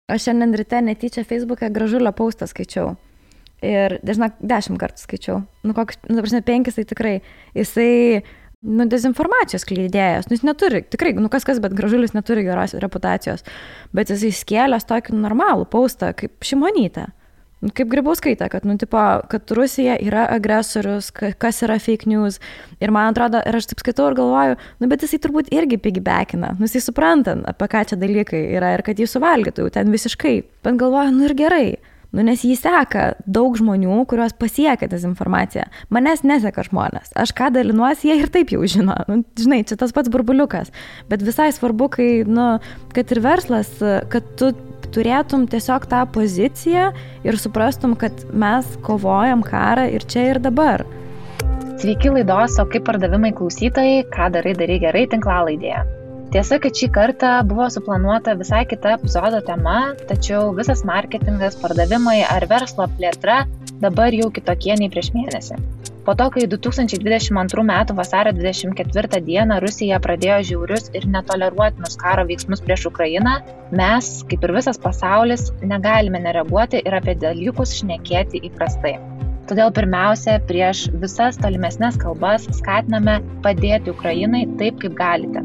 Aš šiandien ryte netyčia Facebook'e Gražulio postą skaičiau. Ir, žinok, 10 kartų skaičiau. Nu, koks, nu, prasme, 5 tai tikrai. Jisai, nu, dezinformacijos skleidėjas. Nu, jis neturi, tikrai, nu, kas, bet Gražulis neturi geros reputacijos. Bet jisai skėlęs tokį normalų postą, kaip Šimonytė. Nu, kaip Grybauskaitė, kad, nu, tipo, kad Rusija yra agresorius, kas yra fake news. Ir man atrodo, ir aš taip skaitau ir galvoju, nu, bet jisai turbūt irgi piggybackina. Nu, jisai supranta, apie ką čia dalykai yra ir kad jį suvalgytų jau ten visiškai. Bet galvoju, nu ir gerai. Nu, nes jį seka daug žmonių, kuriuos pasiekia dezinformacija. Manęs neseka žmonės. Aš ką dalinuosi, jie ir taip jau žino. Nu, žinai, čia tas pats burbuliukas. Bet visai svarbu, kai, nu, kad ir verslas, kad tu turėtum tiesiog tą poziciją ir suprastum, kad mes kovojam karą ir čia ir dabar. Sveiki laidos, o kaip pardavimai klausytojai, ką darai gerai tinklalaidėje. Tiesa, kad šį kartą buvo suplanuota visai kita epizodo tema, tačiau visas marketingas, pardavimai ar verslo plėtra dabar jau kitokie nei prieš mėnesį. Po to, kai 2022 m. vasario 24 d. Rusija pradėjo žiaurius ir netoleruotinus karo veiksmus prieš Ukrainą, mes, kaip ir visas pasaulis, negalime nereaguoti ir apie dalykus šnekėti įprastai. Todėl pirmiausia, prieš visas tolimesnes kalbas skatiname padėti Ukrainai taip, kaip galite.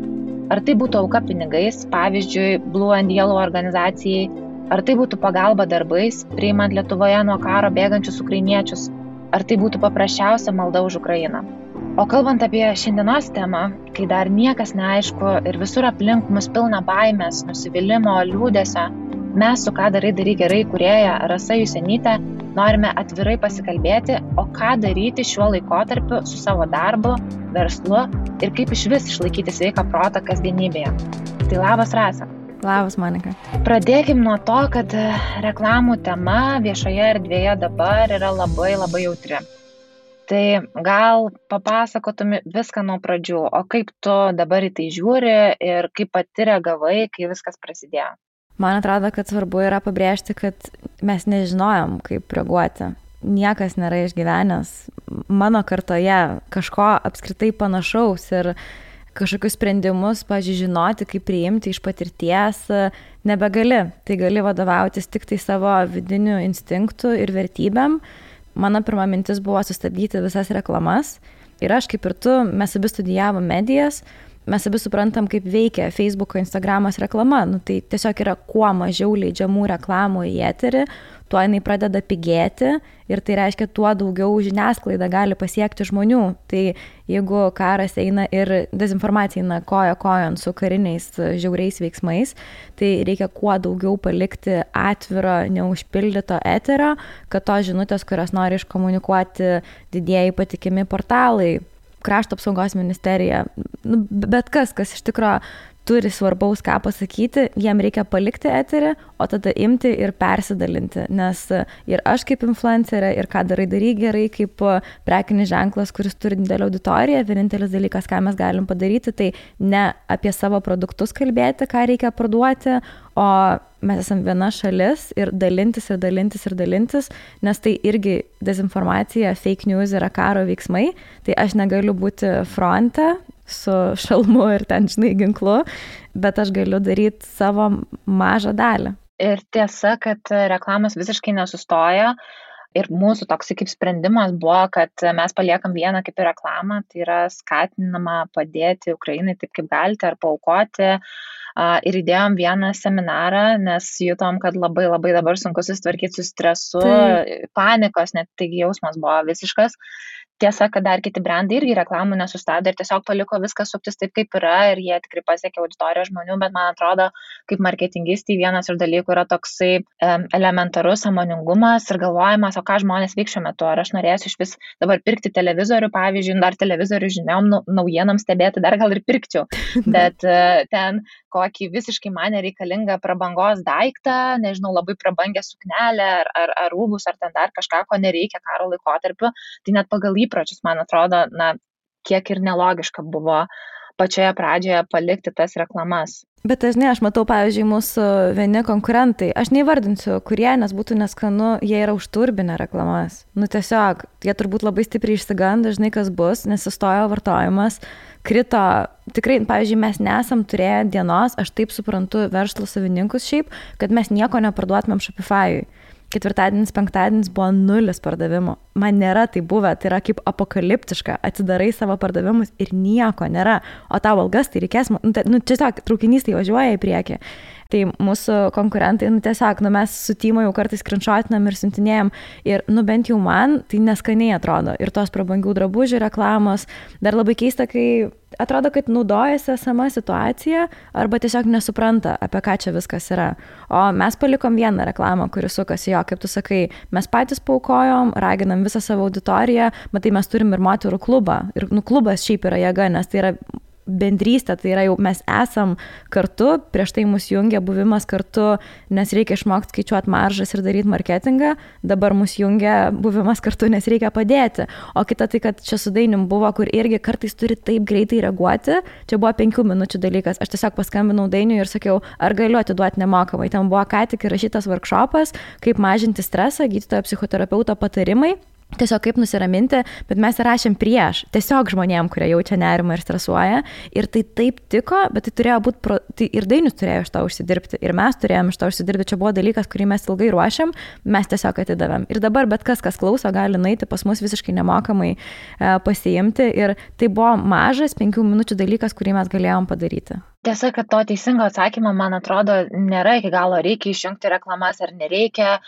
Ar tai būtų auka pinigais, pavyzdžiui, Blue and Yellow organizacijai, ar tai būtų pagalba darbais, priimant Lietuvoje nuo karo bėgančius ukrainiečius, ar tai būtų paprasčiausia malda už Ukrainą. O kalbant apie šiandienos temą, kai dar niekas neaišku ir visur aplink mus pilna baimės, nusivylimo, liūdesio, mes su ką darai gerai kūrėja Rasa Jusenytė norime atvirai pasikalbėti, o ką daryti šiuo laikotarpiu su savo darbu, verslu ir kaip išvis išlaikyti sveiką protą kasdienybėje. Tai labas, Rasa. Labas, Monika. Pradėkim nuo to, kad reklamų tema viešoje erdvėje dabar yra labai jautri. Tai gal papasakotum viską nuo pradžių, o kaip tu dabar į tai žiūri ir kaip pati reagavai, kai viskas prasidėjo? Man atrodo, kad svarbu yra pabrėžti, kad mes nežinojom, kaip reaguoti. Niekas nėra išgyvenęs mano kartoje kažko apskritai panašaus ir kažkokius sprendimus, žinoti, kaip priimti iš patirties, nebegali. Tai gali vadovautis tik tai savo vidiniu instinktu ir vertybėm. Mano pirma mintis buvo sustabdyti visas reklamas. Ir aš, kaip ir tu, mes abi studijavom medijas. Mes abi suprantam, kaip veikia Facebook'o, Instagramas reklama. Nu, tai tiesiog yra kuo mažiau leidžiamų reklamų į eterį, tuo jinai pradeda pigėti ir tai reiškia, tuo daugiau žiniasklaida gali pasiekti žmonių. Tai jeigu karas eina ir dezinformacija eina koja kojon su kariniais žiauriais veiksmais, tai reikia kuo daugiau palikti atviro, neužpildyto eterio, kad tos žinutės, kurias nori iškomunikuoti didieji patikimi portalai, Krašto apsaugos ministerija, nu, bet kas iš tikro turi svarbaus ką pasakyti, jiem reikia palikti eterį, o tada imti ir persidalinti, nes ir aš kaip influencerė, ir ką darai gerai kaip prekinis ženklas, kuris turi didelę auditoriją, vienintelis dalykas, ką mes galim padaryti, tai ne apie savo produktus kalbėti, ką reikia parduoti, o mes esam viena šalis ir dalintis, nes tai irgi dezinformacija, fake news yra karo veiksmai, tai aš negaliu būti fronte su šalmu ir ten, žinai, ginklu, bet aš galiu daryti savo mažą dalį. Ir tiesa, kad reklamos visiškai nesustoja ir mūsų toks kaip sprendimas buvo, kad mes paliekam vieną kaip ir reklamą, tai yra skatinama padėti Ukrainai taip kaip galite ar paaukoti. Ir įdėjom vieną seminarą, nes jutom, kad labai dabar sunku susitvarkyti su stresu, panikos, net taigi jausmas buvo visiškas. Tiesa, kad dar kiti brandai irgi reklamų nesustabdė ir tiesiog paliko viską suktis taip, kaip yra ir jie tikrai pasiekė auditoriją žmonių, bet man atrodo, kaip marketingistai vienas iš dalykų yra toksai elementarus sąmoningumas ir galvojimas, o ką žmonės veiks šiuo metu, ar aš norėsiu iš vis dabar pirkti televizorių, pavyzdžiui, dar televizorių žiniom, naujienom stebėti, dar gal ir pirkčiau, bet ten kokį visiškai man nereikalingą prabangos daiktą, nežinau, labai prabangę suknelę ar rūbus, ar ten dar kažką, ko nereikia karo laikotarpiu, tai net pagal įpročius, man atrodo, kiek ir nelogiška buvo pačioje pradžioje palikti tas reklamas. Bet dažnai aš matau, pavyzdžiui, mūsų vieni konkurentai, aš neįvardinsiu, kurie, nes būtų neskanu, jie yra užturbinę reklamas. Nu tiesiog, jie turbūt labai stipriai išsigando, dažnai kas bus, nes sustojo vartojimas, krito, tikrai, pavyzdžiui, mes nesam turėję dienos, aš taip suprantu verslo savininkus šiaip, kad mes nieko neparduotumėm Shopify'ui. Ketvirtadienis, penktadienis buvo 0 pardavimų. Man nėra tai buvę, tai yra kaip apokaliptiška. Atsidarai savo pardavimus ir nieko nėra. O tau algas tai reikės, tiesiog traukinys tai važiuoja į priekį. Tai mūsų konkurentai, tiesiog, mes su Tymo jau kartais screenshotinam ir siuntinėjom ir, bent jau man tai neskaniai atrodo. Ir tos prabangių drabužių reklamos, dar labai keista, kai atrodo, kad naudojasi esama situacija arba tiesiog nesupranta, apie ką čia viskas yra. O mes palikom vieną reklamą, kuri sukasi jo, kaip tu sakai, mes patys paukojom, raginam visą savo auditoriją, matai, mes turim ir moterų klubą. Ir klubas šiaip yra jėga, nes tai yra bendrystė, tai yra jau mes esam kartu, prieš tai mus jungia buvimas kartu, nes reikia išmokti skaičiuoti maržas ir daryti marketingą, dabar mus jungia buvimas kartu, nes reikia padėti. O kita tai, kad čia su Dainim buvo, kur irgi kartais turi taip greitai reaguoti, čia buvo 5 minučių dalykas, aš tiesiog paskambinau Dainiui ir sakiau, ar galiu atiduoti nemokamai, ten buvo ką tik įrašytas workshopas, kaip mažinti stresą, gydytojo psichoterapeuto patarimai. Tiesiog kaip nusiraminti, bet mes rašėm prieš, tiesiog žmonėm, kurie jaučia nerimą ir stresuoja. Ir tai taip tiko, bet tai turėjo būti, tai ir Dainius turėjo iš to užsidirbti, ir mes turėjom iš to užsidirbti. Čia buvo dalykas, kurį mes ilgai ruošiam, mes tiesiog atidavėm. Ir dabar bet kas klauso, gali nueiti pas mus visiškai nemokamai pasiimti. Ir tai buvo mažas 5 minučių dalykas, kurį mes galėjom padaryti. Tiesa, kad to teisingo atsakymo, man atrodo, nėra iki galo, reikia išjungti reklamas ar nereikia.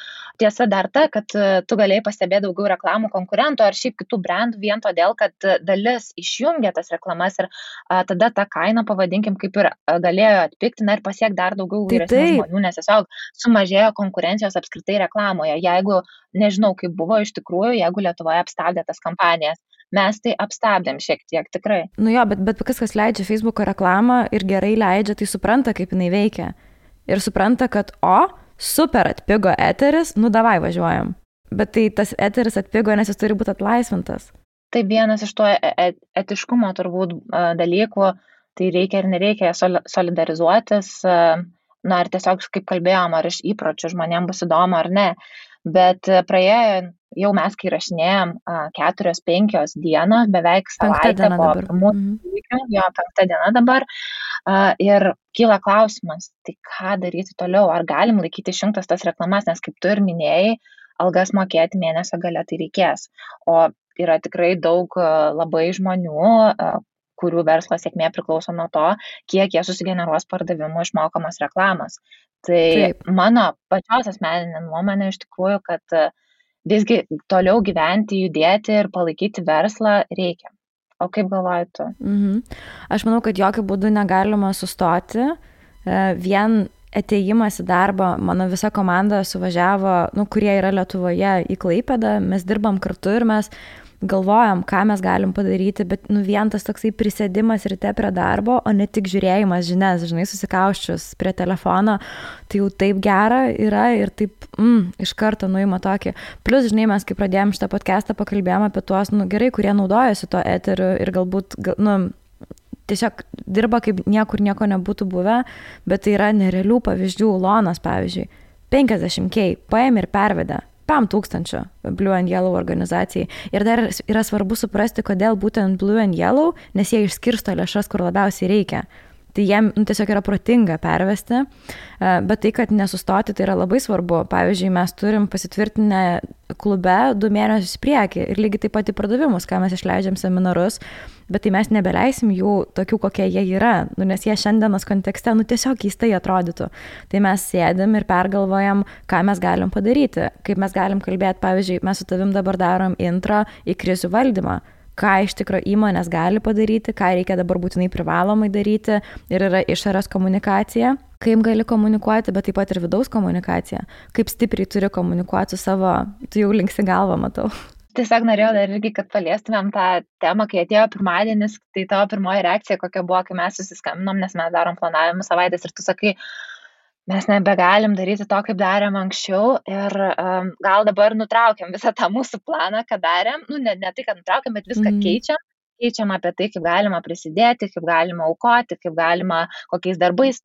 Tiesa dar ta, kad tu galėjai pastebėti daugiau reklamų konkurentų ar šiaip kitų brandų vien todėl, kad dalis išjungia tas reklamas ir tada tą kainą, pavadinkim, kaip ir galėjo atpigti ir pasiekti dar daugiau vyresnių žmonių, nes tiesiog sumažėjo konkurencijos apskritai reklamoje. Jeigu, nežinau, kaip buvo iš tikrųjų, jeigu Lietuvoje apstabdė tas kampanijas. Mes tai apstabdėm šiek tiek, tikrai. Bet kas leidžia Facebooko reklamą ir gerai leidžia, tai supranta, kaip jinai veikia. Ir supranta, kad, super atpigo eteris, davai važiuojam. Bet tai tas eteris atpigo, nes jis turi būti atlaisvintas. Tai vienas iš to etiškumo turbūt dalykų, tai reikia ir nereikia solidarizuotis, ar tiesiog, kaip kalbėjom, ar iš įpročių žmonėms bus įdomu ar ne. Bet praėjo jau mes, kai rašinėjom 4-5 dienos, beveik savaitę po pirmųjų įvykių, 5 diena dabar, ir kyla klausimas, tai ką daryti toliau, ar galim laikyti išjungtas tas reklamas, nes kaip tu ir minėjai, algas mokėti mėnesio gale tai reikės. O yra tikrai daug labai žmonių, kurių verslo sėkmė priklauso nuo to, kiek jie susigeneruos pardavimų išmokamos reklamos. Tai mano pačios asmeninė nuomonė iš tikrųjų, kad visgi toliau gyventi, judėti ir palaikyti verslą reikia. O kaip galvoji tu? Aš manau, kad jokių būdų negalima sustoti. Vien atėjimas į darbą, mano visa komanda suvažiavo, kurie yra Lietuvoje į Klaipėdą, mes dirbam kartu ir mes galvojam, ką mes galim padaryti, bet vien tas toksai prisėdimas ryte prie darbo, o ne tik žiūrėjimas žinias, žinai, susikauščius prie telefono, tai jau taip gera yra ir taip iš karto nuima tokį. Plus, žinai, mes kai pradėjom šitą podcastą, pakalbėjom apie tuos, gerai, kurie naudojasi to eteriu ir galbūt, tiesiog dirba kaip niekur nieko nebūtų buvę, bet tai yra nerealių pavyzdžių. Lonas, pavyzdžiui, 50K paėmė ir pervedė 5,000 Blue and Yellow organizacijai. Ir dar yra svarbu suprasti, kodėl būtent Blue and Yellow, nes jie išskirsto lėšas, kur labiausiai reikia. Tai jiem tiesiog yra protinga pervesti, bet tai, kad nesustoti, tai yra labai svarbu. Pavyzdžiui, mes turim pasitvirtinę klube 2 mėnesius į priekį ir lygiai taip pat į pardavimus, ką mes išleidžiam seminarus, bet tai mes nebeleisim jų tokių, kokie jie yra, nes jie šiandienos kontekste, tiesiog keistai atrodytų. Tai mes sėdim ir pergalvojam, ką mes galim padaryti, kaip mes galim kalbėti, pavyzdžiui, mes su tavim dabar darom intro į krizių valdymą, ką iš tikro įmonės gali padaryti, ką reikia dabar būtinai privalomai daryti ir yra išorės komunikacija, kaip gali komunikuoti, bet taip pat ir vidaus komunikacija, kaip stipriai turi komunikuoti su savo, tu jau linksi galvą, matau. Tiesiog norėjau dar irgi, kad paliestumėm tą temą, kai atėjo pirmadienis, tai tavo pirmoji reakcija kokia buvo, kai mes susiskambinom, nes mes darom planavimų savaitės ir tu sakai, mes nebegalim daryti to, kaip darėm anksčiau ir gal dabar nutraukiam visą tą mūsų planą, ką darėm, ne tai, kad nutraukiam, bet viską keičiam keičiama apie tai, kaip galima prisidėti, kaip galima aukoti, kaip galima kokiais darbais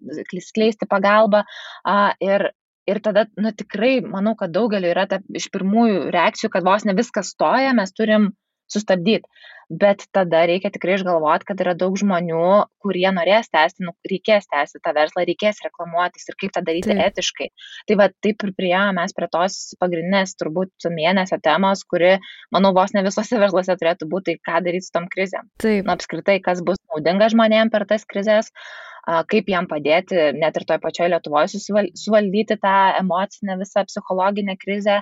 skleisti pagalbą. Ir tada, tikrai, manau, kad daugeliu yra iš pirmųjų reakcijų, kad vos ne viskas stoja, mes turim sustabdyti. Bet tada reikia tikrai išgalvoti, kad yra daug žmonių, kurie norės tęsti, reikės tęsti tą verslą, reikės reklamuotis ir kaip tą daryti etiškai. Tai taip ir priėjome mes prie tos pagrindinės turbūt mėnesio temos, kuri, manau, vos ne visose versluose turėtų būti, tai ką daryti su tom krizėm. Apskritai, kas bus naudinga žmonėm per tas krizės, kaip jam padėti net ir toje pačioje Lietuvoje suvaldyti tą emocinę visą psichologinę krizę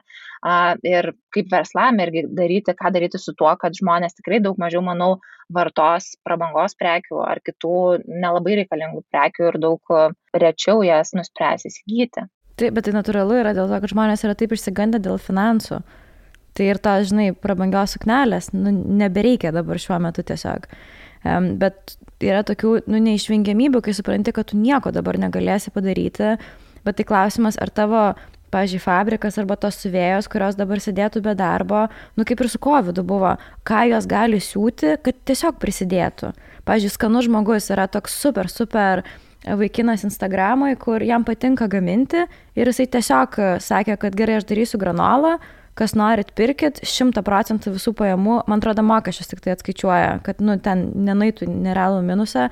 ir kaip verslam irgi ką daryti su tuo, kad žmonės tikrai daug mažiau, manau, vartos prabangos prekių ar kitų nelabai reikalingų prekių ir daug rečiau jas nuspręs įsigyti. Taip, bet tai natūralu yra dėl to, kad žmonės yra taip išsigandę dėl finansų. Tai ir to, prabangios suknelės, nebereikia dabar šiuo metu tiesiog. Bet yra tokių neišvengiamybių, kai supranti, kad tu nieko dabar negalėsi padaryti, bet tai klausimas, ar tavo, pavyzdžiui, fabrikas arba tos siuvėjos, kurios dabar sėdėtų be darbo, kaip ir su COVID buvo, ką jos gali siūti, kad tiesiog prisidėtų. Pavyzdžiui, Skanus žmogus yra toks super vaikinas Instagramui, kur jam patinka gaminti ir jisai tiesiog sakė, kad gerai, aš darysiu granolą, kas norit pirkit, 100% visų pajamų, man atrodo, mokesčius tik tai atskaičiuoja, kad ten nenaitų nerealų minusą,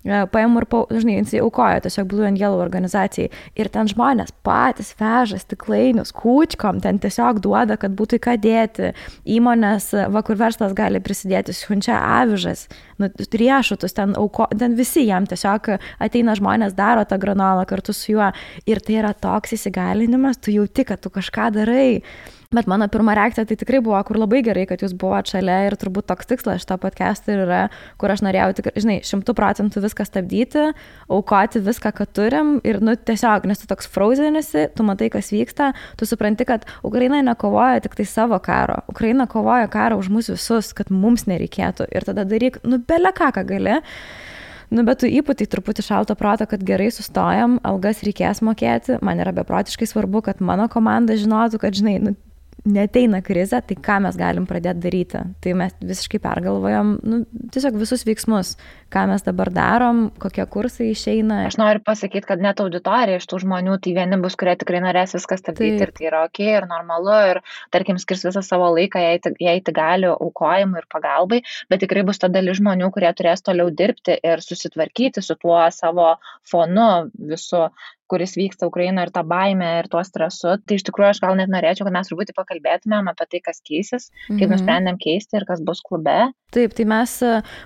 pajamų ir, jisai aukoja tiesiog Blue and Yellow organizacijai. Ir ten žmonės patys veža stiklainius kūčkom, ten tiesiog duoda, kad būtų ką dėti. Įmonės, kur verslas gali prisidėti, siunčia avižas, riešutus, ten visi jam tiesiog ateina žmonės, daro tą granolą kartu su juo. Ir tai yra toks įsigalinimas, tu jauti, kad tu kažką darai. Bet mano pirma reakcija tai tikrai buvo, kur labai gerai, kad jūs buvote šalia ir turbūt toks tikslas šito podcast'o yra, kur aš norėjau tikrai, 100% viską stabdyti, aukoti viską, ką turim ir tiesiog, nes tu toks frozenisi, tu matai, kas vyksta, tu supranti, kad Ukraina nekovoja tik tai savo karo, Ukraina kovoja karą už mus visus, kad mums nereikėtų ir tada daryk, bele ką gali. Bet tu įpūtai truputį šalto proto, kad gerai sustojam, algas reikės mokėti, man yra beprotiškai svarbu, kad mano komanda žinotų, kad, neateina krizė, tai ką mes galim pradėti daryti. Tai mes visiškai pergalvojam, tiesiog visus veiksmus, ką mes dabar darom, kokie kursai išeina. Aš noriu pasakyti, kad net auditorija iš tų žmonių, tai vieni bus, kurie tikrai norės viską stabdyti ir tai yra okei ir normalu ir, tarkim, skirs visą savo laiką, jei tai gali aukojimui ir pagalbai, bet tikrai bus ta dalis žmonių, kurie turės toliau dirbti ir susitvarkyti su tuo savo fonu visu, kuris vyksta Ukrainoje ir tą baimę ir tuo stresu. Tai iš tikrųjų aš gal net norėčiau, kad mes truputį pakalbėtumėm apie tai, kas keisis, kaip nusprendėm keisti ir kas bus klube. Taip, tai mes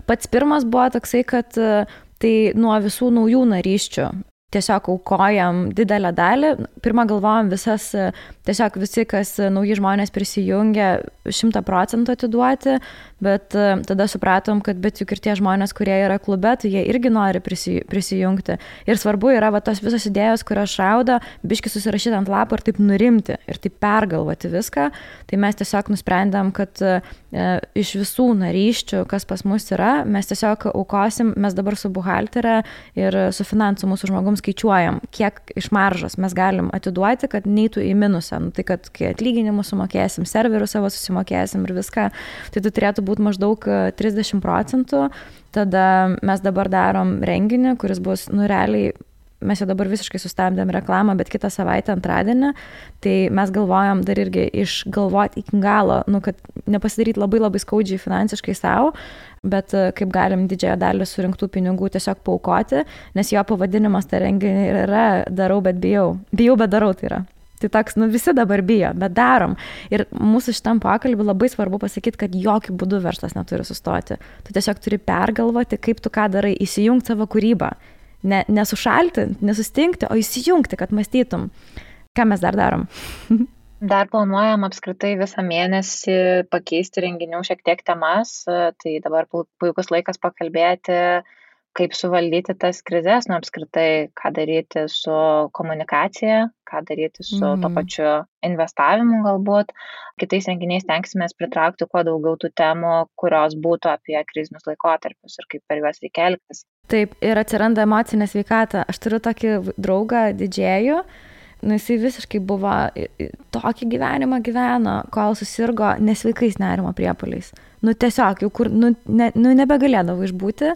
pats pirmas buvo toksai, kad tai nuo visų naujų narysčių tiesiog aukojam didelę dalį. Pirmą galvojam tiesiog visi, kas nauji žmonės prisijungia, 100% atiduoti, bet tada supratom, kad bet juk ir tie žmonės, kurie yra klube, tai jie irgi nori prisijungti. Ir svarbu yra tos visos idėjos, kurios šaudo, biški susirašyti ant lapo ir taip nurimti ir taip pergalvoti viską. Tai mes tiesiog nusprendėm, kad iš visų narysčių, kas pas mus yra, mes tiesiog aukosim, mes dabar su buhalterė ir su finansų mūsų žmogum skaičiuojam, kiek iš maržos mes galim atiduoti, kad neitų į minusą. Tai kad kai atlyginimus sumokėsim, serverų savo susimokėsim ir viską, tai tai turėtų būti maždaug 30%. Tada mes dabar darom renginį, kuris bus, realiai, mes jau dabar visiškai sustabdėm reklamą, bet kitą savaitę antradienį, tai mes galvojam dar irgi išgalvoti iki galo, kad nepasidaryti labai labai skaudžiai finansiškai savo, bet kaip galim didžiąją dalį surinktų pinigų tiesiog paaukoti, nes jo pavadinimas tą renginį yra darau, bet bijau. Bijau, bet darau tai yra. Tai toks, visi dabar bijo, bet darom. Ir mūsų šitam pokalbį labai svarbu pasakyti, kad jokių būdų verslas neturi sustoti. Tu tiesiog turi pergalvoti, kaip tu ką darai, įsijungti savo kūrybą. Nesušalti, nesustingti, o įsijungti, kad mąstytum. Ką mes dar darom? Dar planuojam apskritai visą mėnesį pakeisti renginių šiek tiek temas, tai dabar puikus laikas pakalbėti, kaip suvaldyti tas krizes, apskritai, ką daryti su komunikacija, ką daryti su to pačiu investavimu galbūt. Kitais renginiais tenksimės pritraukti kuo daugiau tų temų, kurios būtų apie krizinius laikotarpius ir kaip per juos reikia elgtis. Taip, ir atsiranda emocinė sveikata. Aš turiu tokį draugą didžėjų, jisai visiškai buvo tokį gyvenimą gyveno, kol susirgo nesveikais nerimo priepuoliais. tiesiog, jau kur, nebegalėdavo išbūti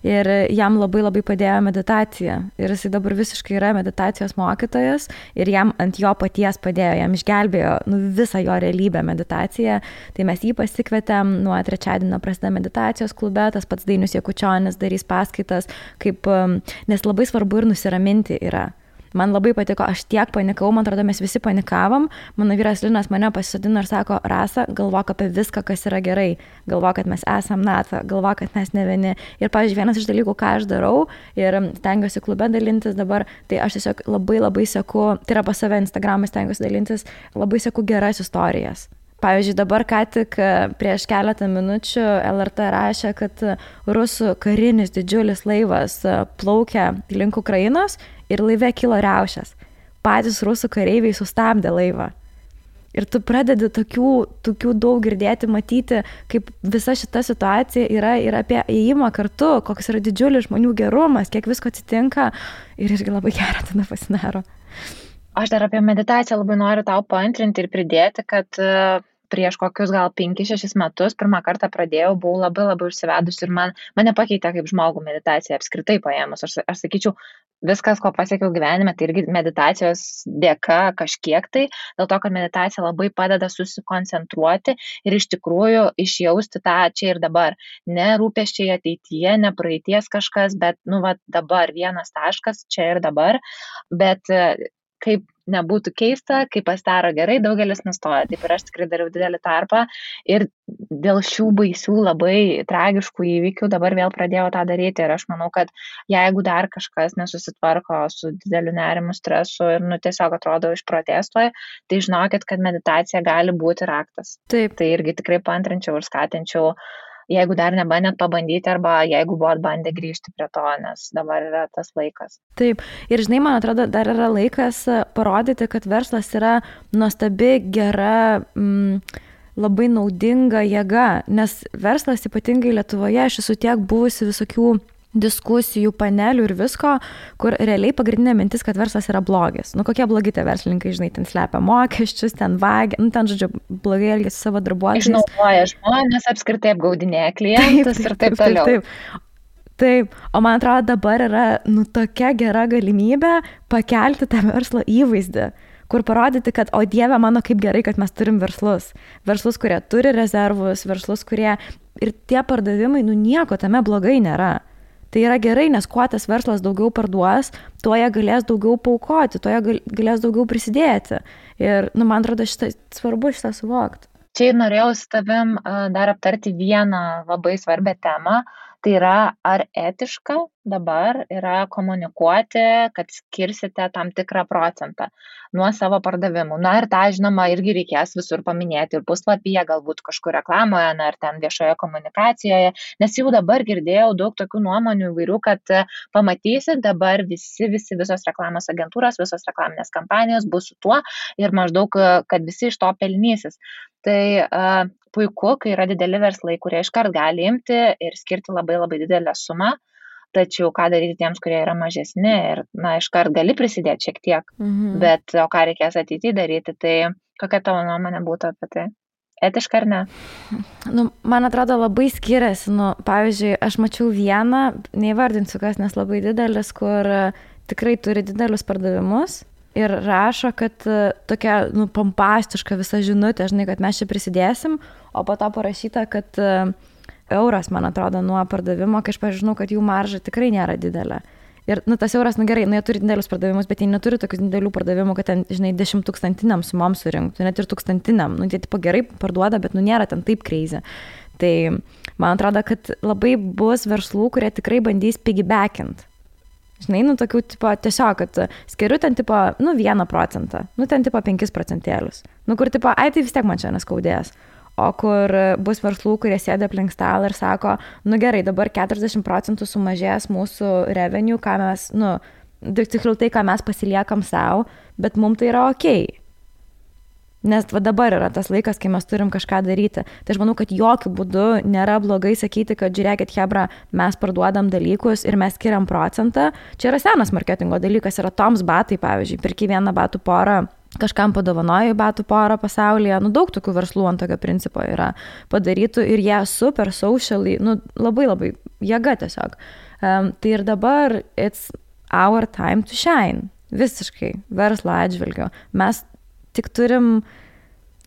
ir jam labai labai padėjo meditacija ir jisai dabar visiškai yra meditacijos mokytojas ir jam ant jo paties padėjo, jam išgelbėjo visą jo realybę meditaciją, tai mes jį pasikvietėm, nuo trečiadienio prasideda meditacijos klube, tas pats Dainius Jakučionis darys paskaitas, nes labai svarbu ir nusiraminti yra. Man labai patiko, aš tiek panikau, man atrodo, mes visi panikavom, mano vyras Linas mane pasisodino ir sako, Rasa, galvok apie viską, kas yra gerai, galvok, kad mes esam NATO, galvok, kad mes ne vieni. Ir, pavyzdžiui, vienas iš dalykų, ką aš darau ir stengiuosi klube dalintis dabar, tai aš tiesiog labai seku, tai yra pas save Instagram'ą stengiuosi dalintis, labai seku geras istorijas. Pavyzdžiui, dabar ką tik prieš keletą minučių LRT rašė, kad rusų karinis didžiulis laivas plaukia link Ukrainos ir laive kilo riaušės. Patys rusų kareiviai sustabdė laivą. Ir tu pradedi tokių daug girdėti, matyti, kaip visa šita situacija yra ir apie ėjimą kartu, koks yra didžiulis žmonių gerumas, kiek visko atsitinka ir irgi labai gera tada pasidaro. Aš dar apie meditaciją labai noriu tau paantrinti ir pridėti, kad prieš kokius gal 5-6 metus pirmą kartą pradėjau, buvau labai užsivedus ir mane pakeitė kaip žmogų meditacija apskritai paėmus. Aš sakyčiau, viskas, ko pasiekiau gyvenime, tai irgi meditacijos dėka kažkiek tai, dėl to, kad meditacija labai padeda susikoncentruoti ir iš tikrųjų išjausti tą čia ir dabar. Ne rūpesčiai ateityje, ne praeities kažkas, bet dabar vienas taškas čia ir dabar, bet kaip nebūtų keista, kai pasidaro gerai, daugelis nustoja. Taip ir aš tikrai dariau didelį tarpą ir dėl šių baisių labai tragiškų įvykių dabar vėl pradėjau tą daryti ir aš manau, kad jeigu dar kažkas nesusitvarko su dideliu nerimu, stresu ir tiesiog atrodo išprotėstoje, tai žinokit, kad meditacija gali būti raktas. Taip. Tai irgi tikrai paantrinčiau ir skatinčiau, jeigu dar nebandėt pabandyti arba jeigu buvot bandę grįžti prie to, nes dabar yra tas laikas. Taip, ir žinai, man atrodo, dar yra laikas parodyti, kad verslas yra nuostabi, gera, labai naudinga jėga, nes verslas ypatingai Lietuvoje, aš esu tiek buvusi visokių diskusijų, panelių ir visko, kur realiai pagrindinė mintis, kad verslas yra blogis. Kokie blogi tie verslininkai, žinai, ten slepia mokesčius, ten vagia, ten, žodžiu, blogai elgiasi savo darbuotojais. Išnaudoja žmonės, apskritai apgaudinėja klientus ir taip toliau. Taip, o man atrodo, dabar yra tokia gera galimybė pakelti tą verslo įvaizdį, kur parodyti, kad, o Dieve mano, kaip gerai, kad mes turim verslus. Verslus, kurie turi rezervus, verslus, kurie ir tie pardavimai, nieko tame blogai nėra. Tai yra gerai, nes kuo tas verslas daugiau parduos, tuo jie galės daugiau paaukoti, tuo jie galės daugiau prisidėti. Ir, man atrodo, svarbu šitą suvokti. Čia ir norėjau su tavim dar aptarti vieną labai svarbią temą. Tai yra, ar etiška dabar yra komunikuoti, kad skirsite tam tikrą procentą nuo savo pardavimų. Ir tą, žinoma, irgi reikės visur paminėti ir puslapyje, galbūt kažkur reklamoje, ar ten viešoje komunikacijoje, nes jau dabar girdėjau daug tokių nuomonių įvairių, kad pamatysit dabar visos reklamos agentūros, visos reklaminės kampanijos bus su tuo ir maždaug, kad visi iš to pelnysis. Tai puiku, kai yra dideli verslai, kurie iškart gali imti ir skirti labai didelę sumą, tačiau ką daryti tiems, kurie yra mažesni ir, iškart gali prisidėti šiek tiek, bet o ką reikės ateityje daryti, tai kokia tavo nuomonė būtų apie tai? Etiška ar ne? Man atrodo, labai skiriasi. Pavyzdžiui, aš mačiau vieną, neįvardinsiu kas, nes labai didelis, kur tikrai turi didelius pardavimus. Ir rašo, kad tokia pompastiška visa žinutė, žinai, kad mes čia prisidėsim, o po to parašyta, kad euras, man atrodo, nuo pardavimo, kai aš pažinau, kad jų marža tikrai nėra didelė. Ir tas euras, gerai, jie turi didelius pardavimus, bet jie neturi tokių didelių pardavimų, kad ten, žinai, 10,000 sumom surinktų, net ir 1,000. Jie tipo gerai parduoda, bet nėra ten taip crazy. Tai man atrodo, kad labai bus verslų, kurie tikrai bandys piggybackint. Žinai, tokių, tipo, tiesiog, kad skiriu ten, tipo, 1%, ten, tipo, 5%. Kur, tipo, tai vis tiek man čia neskaudės. O kur bus verslų, kurie sėda aplink stalą ir sako, gerai, dabar 40% sumažės mūsų revenue, ką mes, tiksliau tai, ką mes pasiliekam savo, bet mums tai yra okei. Nes dabar yra tas laikas, kai mes turim kažką daryti. Tai aš manau, kad jokių būdų nėra blogai sakyti, kad žiūrėkit, hebra, mes parduodam dalykus ir mes skiriam procentą. Čia yra senas marketingo dalykas, yra Toms batai, pavyzdžiui, pirki vieną batų porą kažkam padovanoju batų porą pasaulyje, daug tokių verslų ant tokio principo yra padarytų ir jie super socially, labai labai jėga tiesiog. Tai ir dabar it's our time to shine, visiškai verslo atžvilgiu. Mes tik turim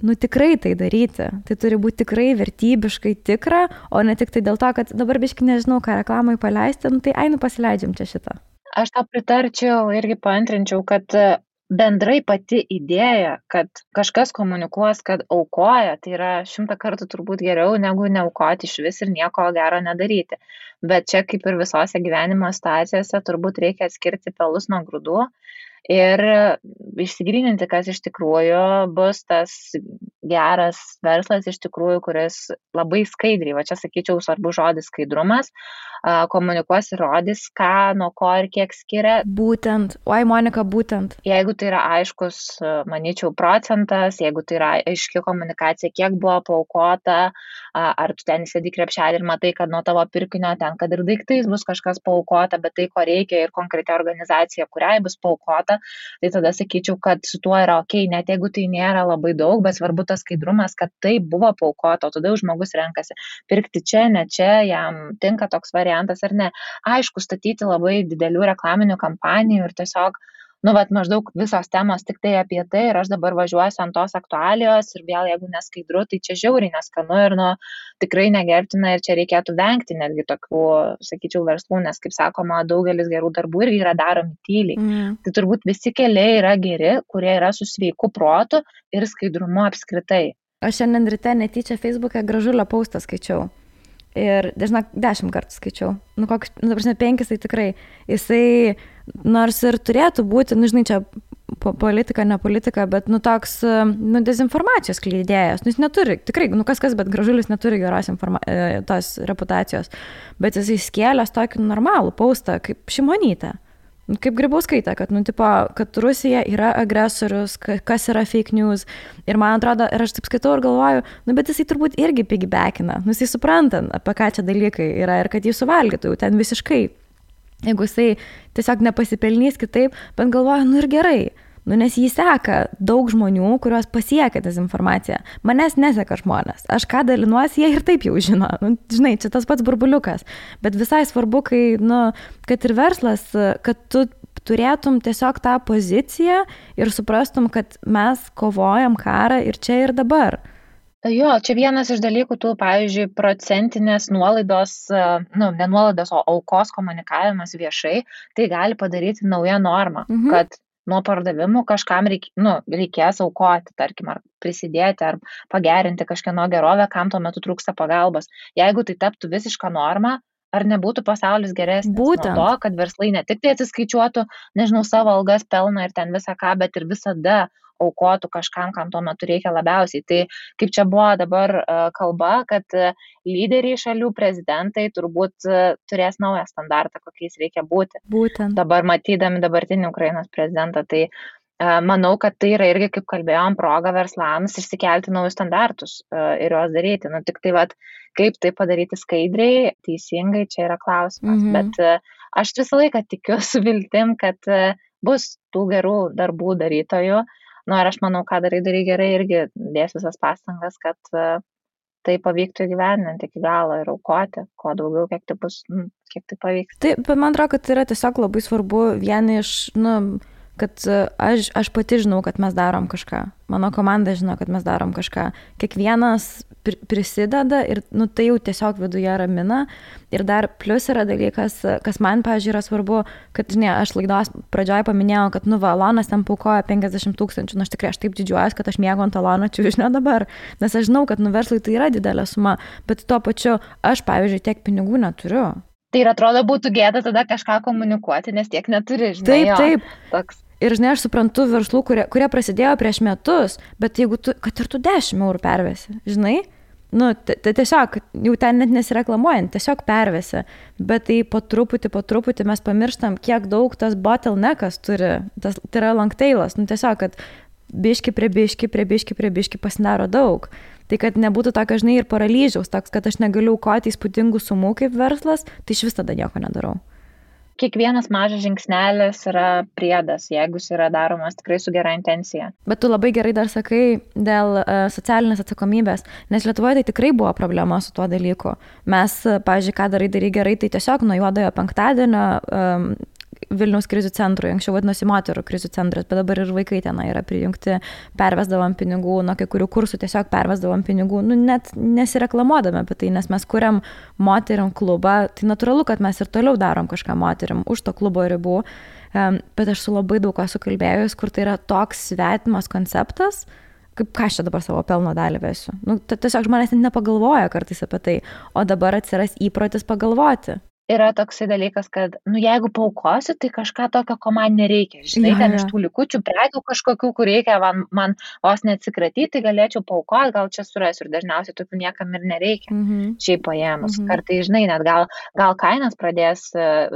tikrai tai daryti. Tai turi būti tikrai vertybiškai tikra, o ne tik tai dėl to, kad dabar biškai nežinau, ką reklamai paleisti, tai pasileidžiam čia šitą. Aš tą pritarčiau, irgi paantrinčiau, kad bendrai pati idėja, kad kažkas komunikuos, kad aukoja, tai yra 100 kartų turbūt geriau negu neaukoti iš vis ir nieko gero nedaryti. Bet čia kaip ir visose gyvenimo situacijose turbūt reikia atskirti pelus nuo grūdų ir išsigryninti, kas iš tikrųjų bus tas geras verslas iš tikrųjų, kuris labai skaidriai, va čia sakyčiau svarbu žodis skaidrumas, komunikuos ir rodys, ką, nuo ko ir kiek skiria. Būtent, Monika, būtent. Jeigu tai yra aiškus, manyčiau, procentas, jeigu tai yra aiški komunikacija, kiek buvo paaukota, ar tu ten įsėdi krepšelį ir matai, kad nuo tavo pirkinio ten, kad ir daiktais bus kažkas paaukota, bet tai, ko reikia ir konkreti organizacija, kuriai bus paaukota, tai tada sakyčiau, kad su tuo yra ok, net jeigu tai nėra labai daug, bet svarbu tas skaidrumas, kad tai buvo paaukota, o tada jau žmogus renkasi pirkti čia, ne čia, jam tinka toks variantas ar ne. Aišku, statyti labai didelių reklaminių kampanijų ir tiesiog, maždaug visos temos tik tai apie tai ir aš dabar važiuosiu ant tos aktualijos ir vėl jeigu neskaidru, tai čia žiauriai neskanu ir tikrai negerbtina ir čia reikėtų vengti netgi tokių, sakyčiau, verslų, nes, kaip sakoma, daugelis gerų darbų irgi yra daromi tyliai. Tai turbūt visi keliai yra geri, kurie yra su sveiku protu ir skaidrumu apskritai. Aš šiandien ryte netyčia Facebook'e Gražulio postą skaičiau. Ir, žinok, 10 kartų skaičiau. 5 tai tikrai. Jisai, nors ir turėtų būti, žinai, čia politika, ne politika, bet, toks, dezinformacijos skleidėjas. Jis neturi, tikrai, kas, bet Gražulis neturi geros tos reputacijos. Bet jisai skėlęs tokį normalų postą, kaip Šimonytė. Kaip Grybauskaitė, kad Rusija yra agresorius, kas yra fake news. Ir man atrodo, ir aš taip skaitau ir galvoju, bet jisai turbūt irgi piggybackina. Jisai supranta, apie ką čia dalykai yra ir kad jį suvalgytų jau ten visiškai. Jeigu jisai tiesiog nepasipelnys kitaip, bet galvoju, ir gerai. Nes jį seka daug žmonių, kuriuos pasiekia dezinformacija. Manęs neseka žmonės. Aš ką dalinuosi, jie ir taip jau žino. Žinai, čia tas pats burbuliukas. Bet visai svarbu, kai, kad ir verslas, kad tu turėtum tiesiog tą poziciją ir suprastum, kad mes kovojam karą ir čia ir dabar. Jo, čia vienas iš dalykų, pavyzdžiui, procentinės nuolaidos, ne nuolaidos, o aukos komunikavimas viešai, tai gali padaryti naują normą, kad nuo pardavimų kažkam reikės aukoti, tarkim, ar prisidėti, ar pagerinti kažkieno gerovę, kam tuo metu trūksta pagalbos. Jeigu tai taptų visišką normą, ar nebūtų pasaulis geresnis? Būtent. Nuo to, kad verslai ne tik tai atsiskaičiuotų, savo algas, pelną ir ten visą ką, bet ir visada aukotų kažkam, kam tuo metu reikia labiausiai. Tai kaip čia buvo dabar kalba, kad lyderiai šalių prezidentai turbūt turės naują standartą, kokiais reikia būti. Būtent. Dabar matydami dabartinį Ukrainos prezidentą, tai manau, kad tai yra irgi, kaip kalbėjom, proga verslams išsikelti naujus standartus ir juos daryti. Tik tai, kaip tai padaryti skaidriai, teisingai, čia yra klausimas. Bet aš visą laiką tikiu su viltim, kad bus tų gerų darbų darytojų. Ir aš manau, ką darai gerai, irgi dės visas pastangas, kad tai pavyktų įgyvendinti iki galo ir aukoti, kuo daugiau, kiek tai pavyks. Taip, bet man atrodo, kad tai yra tiesiog labai svarbu vieni iš, kad aš pati žinau, kad mes darom kažką. Mano komanda žino, kad mes darom kažką. Kiekvienas prisideda ir tai jau tiesiog viduje ramina. Ir dar plus yra dalykas, kas man, pavyzdžiui, yra svarbu, kad, aš laidos pradžioje paminėjau, kad, Alonas ten paukoja 50 000. Aš tikrai taip didžiuojuosi, kad aš mėgau ant Alono čiužinio dabar. Nes aš žinau, kad verslui tai yra didelė suma, bet tuo pačiu aš, pavyzdžiui, tiek pinigų neturiu. Tai ir atrodo būtų gėda tada kažką komunikuoti, nes tiek neturi, žinai. Taip. Toks. Ir, aš suprantu verslų, kurie prasidėjo prieš metus, bet jeigu kad ir tu 10 eurų pervesi, žinai, tai tiesiog, jau ten net nesireklamuojant, tiesiog pervesi, bet tai po truputį mes pamirštam, kiek daug tas bottleneckas turi, tai yra long tailas, tiesiog, kad biški prie biški pasidaro daug. Tai kad nebūtų tokio, žinai, ir paralyžiaus, toks, kad aš negaliu aukoti įspūdingų sumų kaip verslas, tai iš vis tada nieko nedarau. kiekvienas mažas žingsnelis yra priedas, jeigu jis yra daromas tikrai su gera intencija. Bet tu labai gerai dar sakai dėl socialinės atsakomybės, nes Lietuvoje tai tikrai buvo problema su tuo dalyku. Mes, pavyzdžiui, ką darai gerai, tai tiesiog nuo juodojo penktadienio Vilniaus krizių centrui, anksčiau vadinosi moterų krizių centras, bet dabar ir vaikai tenai yra prijungti, pervesdavom pinigų, nuo kai kurių kursų tiesiog pervesdavom pinigų, net nesireklamuodami apie tai, nes mes kuriam moteriam klubą, tai natūralu, kad mes ir toliau darom kažką moteriam už to klubo ribų, bet aš su labai daug ko sukalbėjus, kur tai yra toks svetimas konceptas, kaip ką aš čia dabar savo pelno dalį vesiu. Tiesiog žmonės net nepagalvoja kartais apie tai, o dabar atsiras įprotis pagalvoti. Yra toksai dalykas, kad, jeigu paukosiu, tai kažką tokio, ko man nereikia. Žinai, ten iš tų likučių prekių kažkokių, kur reikia man vos neatsikratyti, tai galėčiau paukoti, gal čia surasiu ir dažniausiai tokių niekam ir nereikia. Šiaip paėmus. Kartai, žinai, net gal kainas pradės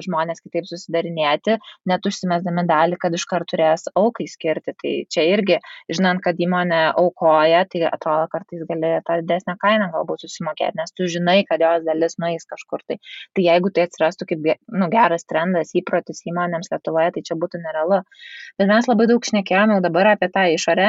žmonės kitaip susidarinėti, net užsimesdami dalį, kad iškart turės aukai skirti. Tai čia irgi, žinant, kad įmonė aukoja, tai atrodo, kartais gali tą didesnę kainą galbūt susimokėti, nes tu žinai, kad jos dalis nueis kažkur. Tai jeigu tai atsirastų kaip geras trendas, įprotis įmonėms Lietuvoje, tai čia būtų nerealu. Bet mes labai daug šnekėjome jau dabar apie tą išorę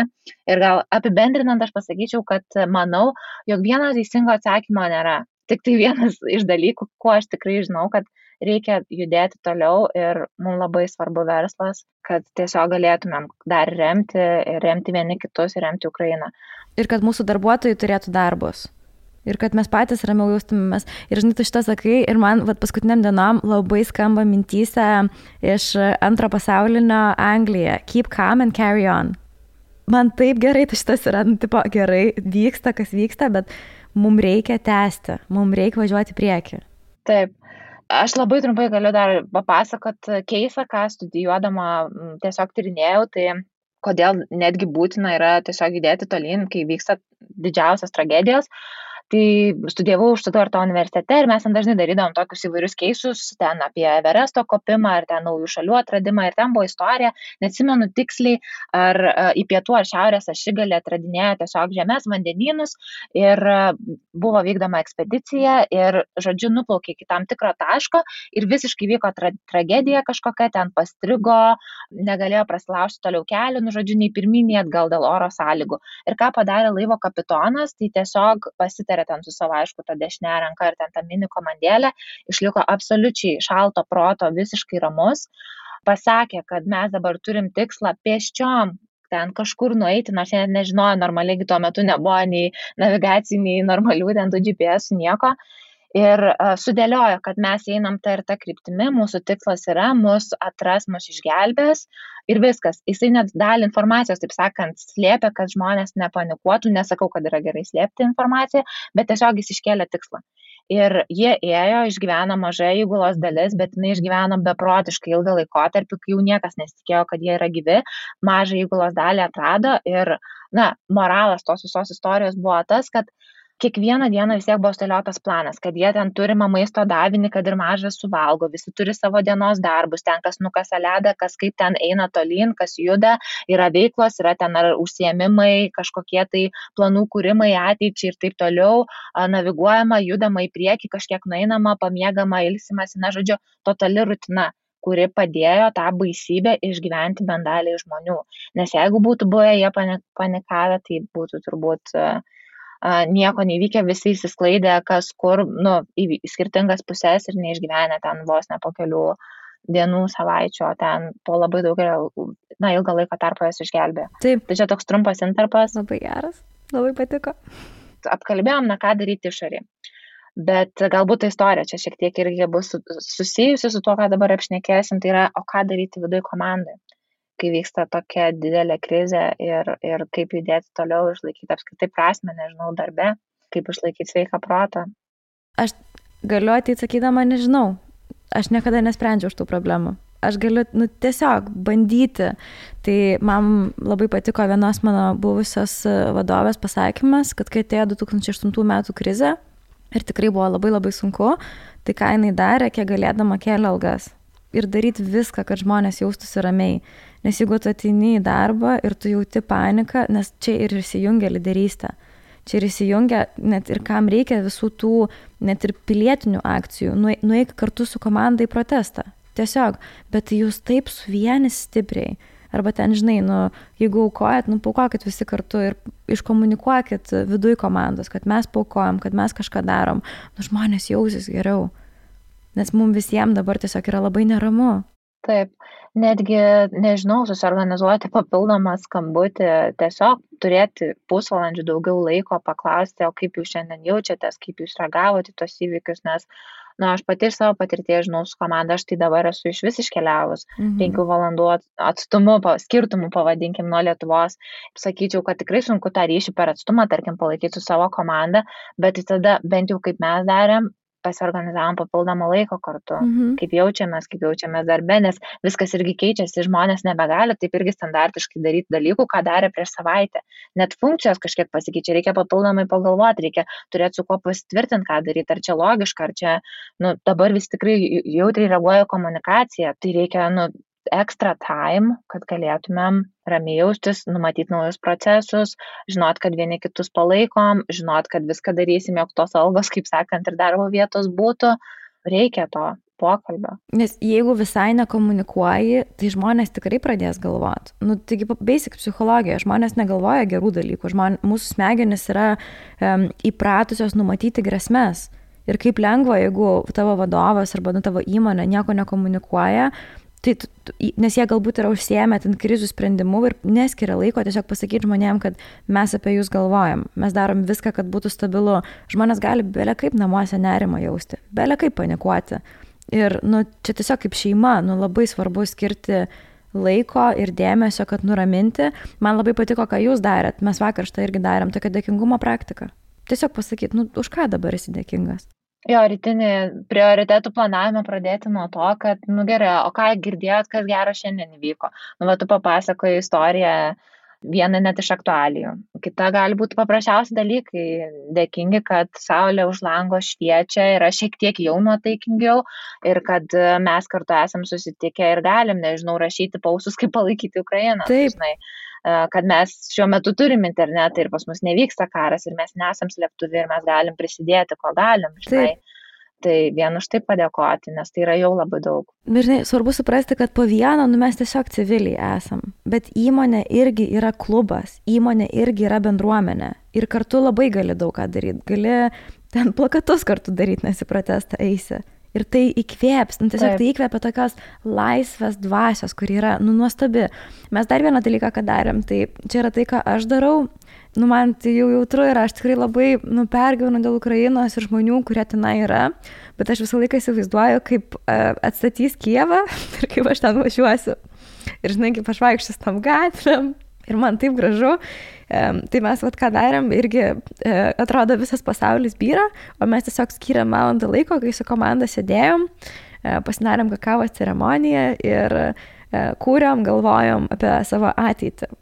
ir gal apibendrinant aš pasakyčiau, kad manau, jog vieno teisingo atsakymo nėra. Tik tai vienas iš dalykų, kuo aš tikrai žinau, kad reikia judėti toliau ir mums labai svarbu verslas, kad tiesiog galėtumėm dar remti vieni kitus ir remti Ukrainą. Ir kad mūsų darbuotojai turėtų darbus. Ir kad mes patys ramiau jaustumėmės. Ir žinai, tu šitą sakai, ir man paskutiniam dienom labai skamba mintyse iš antro pasaulinio Anglija. Keep calm and carry on. Man taip gerai, tai šitas yra, tipo, gerai, vyksta, kas vyksta, bet mums reikia tęsti, mums reikia važiuoti į priekį. Taip. Aš labai trumpai galiu dar papasakot keisą, ką studijuodama tiesiog tyrinėjau, tai kodėl netgi būtina yra tiesiog judėti tolyn, kai vyksta didžiausias tragedijos. Tai studijavau Štuttgarto universitete ir mes ten dažnai darydavom tokius įvairius keisus, ten apie Everesto kopimą ir ten naujų šalių atradimą ir ten buvo istorija, neatsimenu tiksliai, ar į pietų ar šiaurės ašigalį atradinėjo tiesiog žemės vandenynus ir buvo vykdoma ekspedicija ir, žodžiu, nuplaukė iki tam tikro taško ir visiškai vyko tragedija kažkokia, ten pastrigo, negalėjo prasilaužti toliau kelių, žodžiu, nei pirmyn, nei atgal dėl oro sąlygų. Ir ką padarė laivo kapitonas, tai tiesiog pasitarė ten su savo, aišku, tą dešinę ranką ir ten tą mini komandėlę, išliko absoliučiai šalto proto, visiškai ramus, pasakė, kad mes dabar turim tikslą pėsčiom ten kažkur nueiti, nors jie net nežinojo, normaliai tuo metu nebuvo nei navigacijų, nei normalių ten tų GPS, nieko. Ir sudėliojo, kad mes einam tą ir tą kryptimi, mūsų tikslas yra, mus atras, mus išgelbės ir viskas. Jisai net dalį informacijos, taip sakant, slėpė, kad žmonės nepanikuotų, nesakau, kad yra gerai slėpti informaciją, bet tiesiog jis iškėlė tikslą. Ir jie ėjo, išgyveno mažai įgulos dalis, bet jinai išgyveno beprotiškai ilgą laikotarpį, kai jau niekas nesitikėjo, kad jie yra gyvi, mažą įgulos dalį atrado ir, moralas tos visos istorijos buvo tas, kad kiekvieną dieną vis tiek buvo sudėliotas planas, kad jie ten turimą maisto davinį, kad ir mažas suvalgo, visi turi savo dienos darbus, ten kas nukasa ledą, kas kaip ten eina tolyn, kas juda, yra veiklos, yra ten ar užsiėmimai, kažkokie tai planų kūrimai ateičiai ir taip toliau, naviguojama, judama į priekį, kažkiek nueinama, pamiegama, ilsimasi, žodžiu, totali rutina, kuri padėjo tą baisybę išgyventi bent daliai žmonių. Nes jeigu būtų buvę jie panikavę, tai būtų turbūt nieko nevykę, visi įsisklaidė, kas kur, į skirtingas pusės ir neišgyvenę ten vos ne po kelių dienų, savaičių, o ten po labai daug ilgą laiko tarpo jas išgelbėjo. Taip. Tai čia toks trumpas intarpas. Labai geras, labai patiko. Apkalbėjom, ką daryti išorėje. Bet galbūt ta istorija čia šiek tiek irgi bus susijusi su tuo, ką dabar apšnekėsim, tai yra, o ką daryti viduje komandai, kai vyksta tokia didelė krizė ir kaip judėti toliau, išlaikyti apskritai prasmę, nežinau, darbe, kaip išlaikyti sveiką protą. Aš galiu ateiti sakydama, nežinau, aš niekada nesprendžiau už tų problemų. Aš galiu tiesiog bandyti. Tai man labai patiko vienos mano buvusios vadovės pasakymas, kad kai atėjo 2008 metų krizė ir tikrai buvo labai labai sunku, tai ką jinai darė, kiek galėdama kėlė algas. Ir daryti viską, kad žmonės jaustųsi ramiai. Nes jeigu tu ateini į darbą ir tu jauti paniką, nes čia ir įsijungia lyderystė. Čia ir įsijungia net ir kam reikia visų tų net ir pilietinių akcijų. Nueik kartu su komanda į protestą. tiesiog, bet jūs taip suvienys stipriai. Arba ten, žinai, jeigu aukojat, paukokit visi kartu ir iškomunikuokit viduj komandos, kad mes paukojam, kad mes kažką darom. Žmonės jausis geriau, nes mums visiems dabar tiesiog yra labai neramu. Taip, netgi, nežinau, susiorganizuoti papildomą skambutį, tiesiog turėti pusvalandžių daugiau laiko paklausti, o kaip jūs šiandien jaučiatės, kaip jūs reagavote į tos įvykius, nes aš pati iš savo patirties žinau su komanda, aš tai dabar esu iš vis iškeliavus 5 valandų atstumu, skirtumų pavadinkim nuo Lietuvos. Sakyčiau, kad tikrai sunku tą ryšį per atstumą, tarkim, palaikyti su savo komanda, bet tada bent jau kaip mes darėm, pasiorganizavom papildomą laiko kartu, kaip jaučiamės darbe, nes viskas irgi keičiasi, žmonės nebegali taip irgi standartiškai daryti dalykų, ką darė prieš savaitę. Net funkcijos kažkiek pasikeičia, reikia papildomai pagalvoti, reikia turėti su kuo pasitvirtinti, ką daryti, ar čia logiška, ar čia, dabar vis tikrai jautriai reaguoja komunikacija, tai reikia, extra time, kad galėtumėm ramiai jaustis, numatyti naujus procesus, žinot, kad vieni kitus palaikom, žinot, kad viską darysim, jog tos algos, kaip sakant, ir darbo vietos būtų, reikia to pokalbio. Nes jeigu visai nekomunikuoji, tai žmonės tikrai pradės galvoti. Taigi basic psichologija, žmonės negalvoja gerų dalykų, mūsų smegenys yra įpratusios numatyti grėsmes. Ir kaip lengva, jeigu tavo vadovas arba tavo įmonė nieko nekomunikuoja, nes jie galbūt yra užsiėmę ten krizių sprendimu ir neskiria laiko tiesiog pasakyti žmonėm, kad mes apie jūs galvojam, mes darom viską, kad būtų stabilu. Žmonės gali bele kaip namuose nerimą jausti, bele kaip panikuoti. Ir čia tiesiog kaip šeima, labai svarbu skirti laiko ir dėmesio, kad nuraminti. Man labai patiko, ką jūs darėt. Mes vakar štai irgi darėm tokią dėkingumo praktiką. Tiesiog pasakyti, už ką dabar esi dėkingas. Jo, rytinį prioritetų planavimą pradėti nuo to, kad, gerai, o ką girdėjot, kas gero šiandien įvyko. Tu papasakoji istoriją, vieną net iš aktualijų. Kita gali būti paprasčiausi dalykai, dėkingi, kad saulė už lango šviečia, yra šiek tiek jau nuotaikingiau ir kad mes kartu esam susitikę ir galim, rašyti pausus, kaip palaikyti Ukrainą. Taip. Kad mes šiuo metu turim internetą ir pas mus nevyksta karas ir mes nesam slėptuvi ir mes galim prisidėti, ko galim, žinai. Tai vien už tai padėkoti, nes tai yra jau labai daug. Bet žinai, svarbu suprasti, kad po vieną, mes tiesiog civiliai esam, bet įmonė irgi yra klubas, įmonė irgi yra bendruomenė ir kartu labai gali daug ką daryti, gali ten plakatus kartu daryti, nes į protestą eisi. Ir tai įkvėps, tiesiog tai įkvėpia tokios laisvės dvasios, kuri yra, nuostabi. Mes dar vieną dalyką, ką darėm, tai čia yra tai, ką aš darau, man tai jau jautru ir aš tikrai labai pergyvenu dėl Ukrainos ir žmonių, kurie tenai yra, bet aš visą laiką įsivaizduoju, kaip atstatys Kijevą ir kaip aš ten važiuosiu. Ir žinai, kaip aš vaikščiu tam gatvėm. Ir man taip gražu, tai mes ką darėm, irgi atrodo visas pasaulis byra, o mes tiesiog skyrėm valandą laiko, kai su komanda sėdėjom, pasidarėm kakavos ceremoniją ir kūrėm, galvojom apie savo ateitį.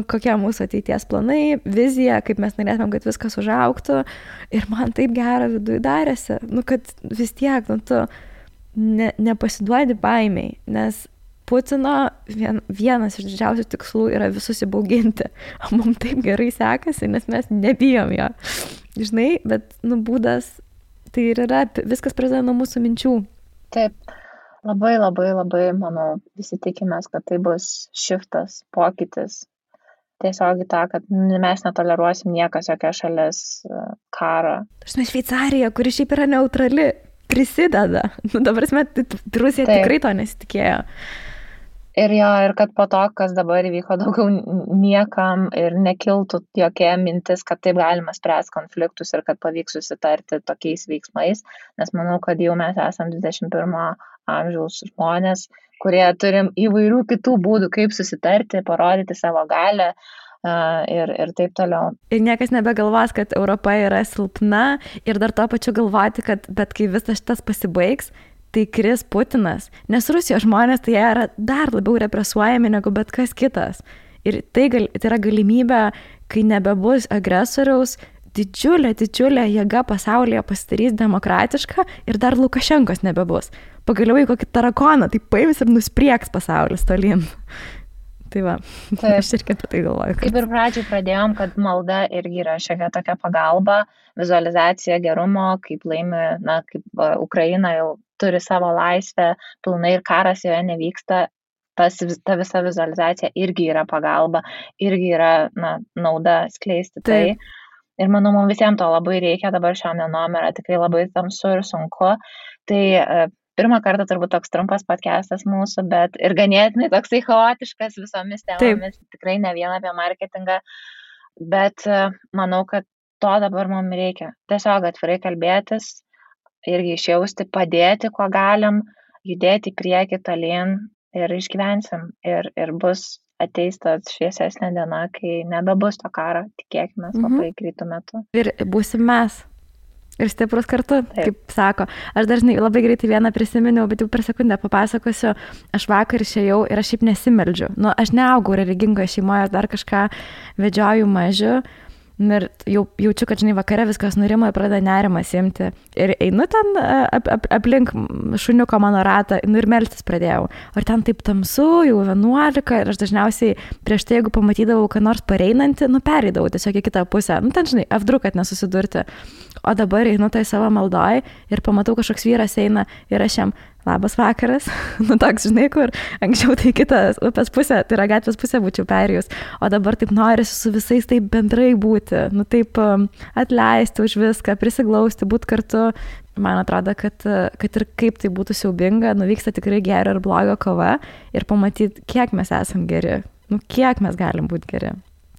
Kokie mūsų ateities planai, vizija, kaip mes norėtumėm, kad viskas užaugtų. Ir man taip gera viduj darėsi, kad vis tiek, tu nepasiduodi baimiai, nes Putino vienas iš didžiausių tikslų yra visus įbauginti. O mums taip gerai sekasi, nes mes nebijom jo. Žinai, bet būdas, tai ir yra, viskas prasideda nuo mūsų minčių. Taip, labai, manau, visi tikimės, kad tai bus šiftas, pokytis. Tiesiog į tą, kad mes netoleruosim niekas, jokia šalis karą. Šveicarija, kuri šiaip yra neutrali, prisideda. Dabar Rusija tikrai to nesitikėjo. Ir kad po to, kas dabar įvyko, daugiau niekam ir nekiltų jokia mintis, kad taip galima spręsti konfliktus ir kad pavyks susitarti tokiais veiksmais, nes manau, kad jau mes esam 21 amžiaus žmonės, kurie turim įvairių kitų būdų, kaip susitarti, parodyti savo galią ir taip toliau. Ir niekas nebegalvos, kad Europa yra silpna ir dar to pačiu galvoti, kad bet kai visas šitas pasibaigs, tai kris Putinas, nes Rusijos žmonės tai jie yra dar labiau represuojami negu bet kas kitas. Ir tai yra galimybė, kai nebebus agresoriaus, didžiulė jėga pasaulyje pasidarys demokratiška ir dar Lukašenkos nebebus. Pagaliau į kokį tarakoną, tai paims ir nusprieks pasaulis tolyn. Tai va, aš irgi apie tai galvoju. Kaip ir pradžiai pradėjom, kad malda irgi yra šiek tokia pagalba, vizualizacija gerumo, kaip laimi, kaip Ukraina jau turi savo laisvę pilnai ir karas joje nevyksta, ta visa vizualizacija irgi yra pagalba, irgi yra nauda skleisti tai. Ir manau, mums visiems to labai reikia, dabar šiom dienom yra tikrai labai tamsu ir sunku. Tai pirmą kartą turbūt toks trumpas podcastas mūsų, bet ir ganėtinai toksai chaotiškas visomis temomis, tikrai ne vien apie marketingą, bet manau, kad to dabar mums reikia. Tiesiog atvirai kalbėtis, irgi išjausti, padėti, kuo galim, judėti į priekį tolyn ir išgyvensim. Ir bus ateis tas šviesesnė diena, kai nebebus to karo, tikėkime, labai greitų metų. Ir būsim mes. Ir stiprus kartu, kaip sako. Aš dažnai labai greitai vieną prisiminiau, bet jau per sekundę papasakosiu. Aš vakar išėjau ir aš šiaip nesimeldžiu. Aš neaugau religingoje šeimoje, dar kažką vedžioju mažiu. Ir jau jaučiu, kad, vakare viskas nurimo ir pradeda nerimas imti. Ir einu ten aplink šuniuko mano ratą, ir melstis pradėjau. Ir ten taip tamsu, jau 11, ir aš dažniausiai prieš tai, jeigu pamatydavau, kad nors pareinantį, pereidavau tiesiog į kitą pusę. Ten, F2, kad nesusidurti. O dabar einu tai savo maldoj ir pamatau, kažkoks vyras eina ir aš jam labas vakaras. Toks, kur anksčiau tai kitas upės pusė, tai yra gatvės pusė būčiau perėjus. O dabar taip norisi su visais taip bendrai būti, taip atleisti už viską, prisiglausti, būti kartu. Man atrodo, kad ir kaip tai būtų siaubinga, vyksta tikrai gero ir blogo kova ir pamatyti, kiek mes esam geri, kiek mes galim būti geri.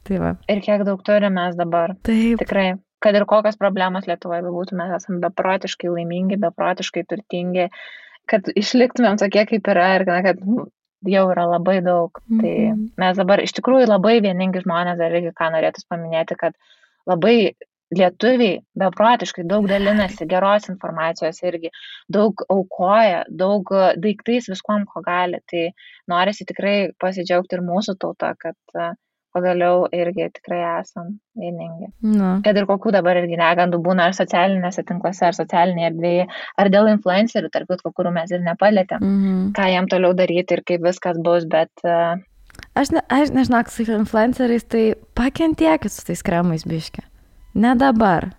Tai va. Ir kiek daug turime mes dabar. Taip. Tikrai. Kad ir kokios problemos Lietuvoje bebūtų, mes esame beprotiškai laimingi, beprotiškai turtingi, kad išliktumėm tokie, kaip yra ir kad jau yra labai daug. Tai mes dabar iš tikrųjų labai vieningi žmonės, dar irgi ką norėtus paminėti, kad labai lietuviai beprotiškai daug dalinasi geros informacijos irgi, daug aukoja, daug daiktais viskuom, ko gali. Tai norisi tikrai pasidžiaugti ir mūsų tauta, kad pagaliau irgi tikrai esam vieningi. Kad ir kokių dabar irgi negandų būna ar socialinėse tinkluose, ar socialinėje erdvėje, ar dėl influencerių, tarp kitko, kurių mes ir nepalėtėm, ką jam toliau daryti ir kaip viskas bus, bet... Aš nežinau, su influenceriais, tai pakentiekit su tais kremais biški. Ne dabar.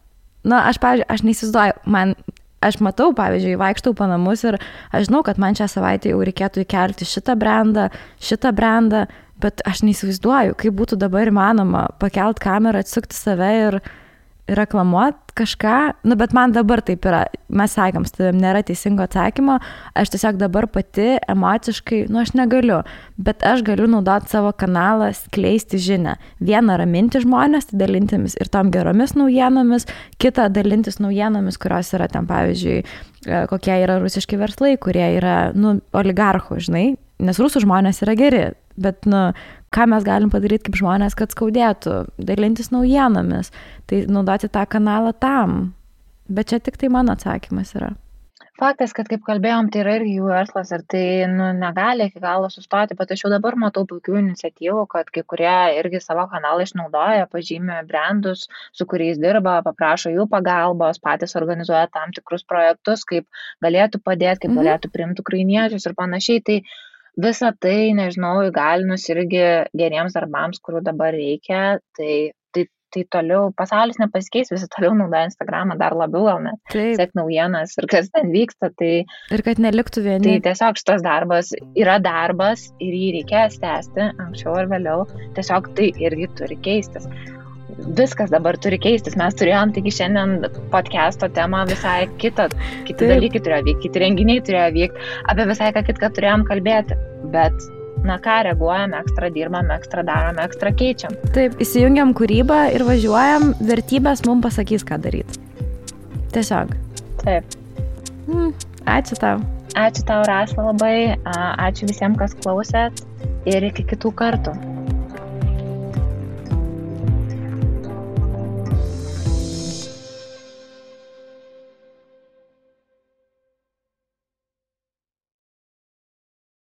Pavyzdžiui, aš neįsivaizduoju, aš matau, pavyzdžiui, vaikštau po namus ir aš žinau, kad man šią savaitę jau reikėtų įkelti šitą brandą, bet aš neįsivaizduoju, kaip būtų dabar įmanoma pakelt kamerą, atsukti save ir reklamuoti kažką. Bet man dabar taip yra, mes sakėm, nėra teisingo atsakymo, aš tiesiog dabar pati emociškai, aš negaliu, bet aš galiu naudoti savo kanalą, skleisti žinią. Vieną raminti žmonės, dalintimis ir tom geromis naujienomis, kitą dalintis naujienomis, kurios yra ten, pavyzdžiui, kokie yra rusiški verslai, kurie yra, oligarchų, žinai, nes rusų žmonės yra geri. Bet, ką mes galim padaryti kaip žmonės, kad skaudėtų, dalintis naujienomis, tai naudoti tą kanalą tam. Bet čia tik tai mano atsakymas yra. Faktas, kad kaip kalbėjom, tai yra irgi jų verslas ir tai negali iki galo sustoti, bet aš jau dabar matau puikių iniciatyvų, kad kai kurie irgi savo kanalą išnaudoja, pažymė brandus, su kuriais dirba, paprašo jų pagalbos, patys organizuoja tam tikrus projektus, kaip galėtų padėti, kaip galėtų priimti ukrainiečius ir panašiai. Tai visą tai, nežinau, įgalinus irgi geriems darbams, kurių dabar reikia, tai toliau pasaulis nepasikeis, visi toliau naudoja Instagramą dar labiau, gal net sek naujienas ir kas ten vyksta. Ir kad neliktų vieni. Tai tiesiog šitas darbas yra darbas ir jį reikės tęsti anksčiau ar vėliau, tiesiog tai irgi turi keistis. Viskas dabar turi keistis. Mes turėjom taigi šiandien podcast'o temą visai kiti dalykai turėjo vykti, kiti renginiai turėjo vykti, apie visai ką kitką turėjom kalbėti. Bet, ką reaguojam, ekstra dirbam, ekstra darom, ekstra keičiam. Taip, įsijungiam kūrybą ir važiuojam, vertybės mums pasakys, ką daryti. Tiesiog. Taip. Ačiū tau. Ačiū tau, Rasa, labai. Ačiū visiems, kas klausėt ir iki kitų kartų.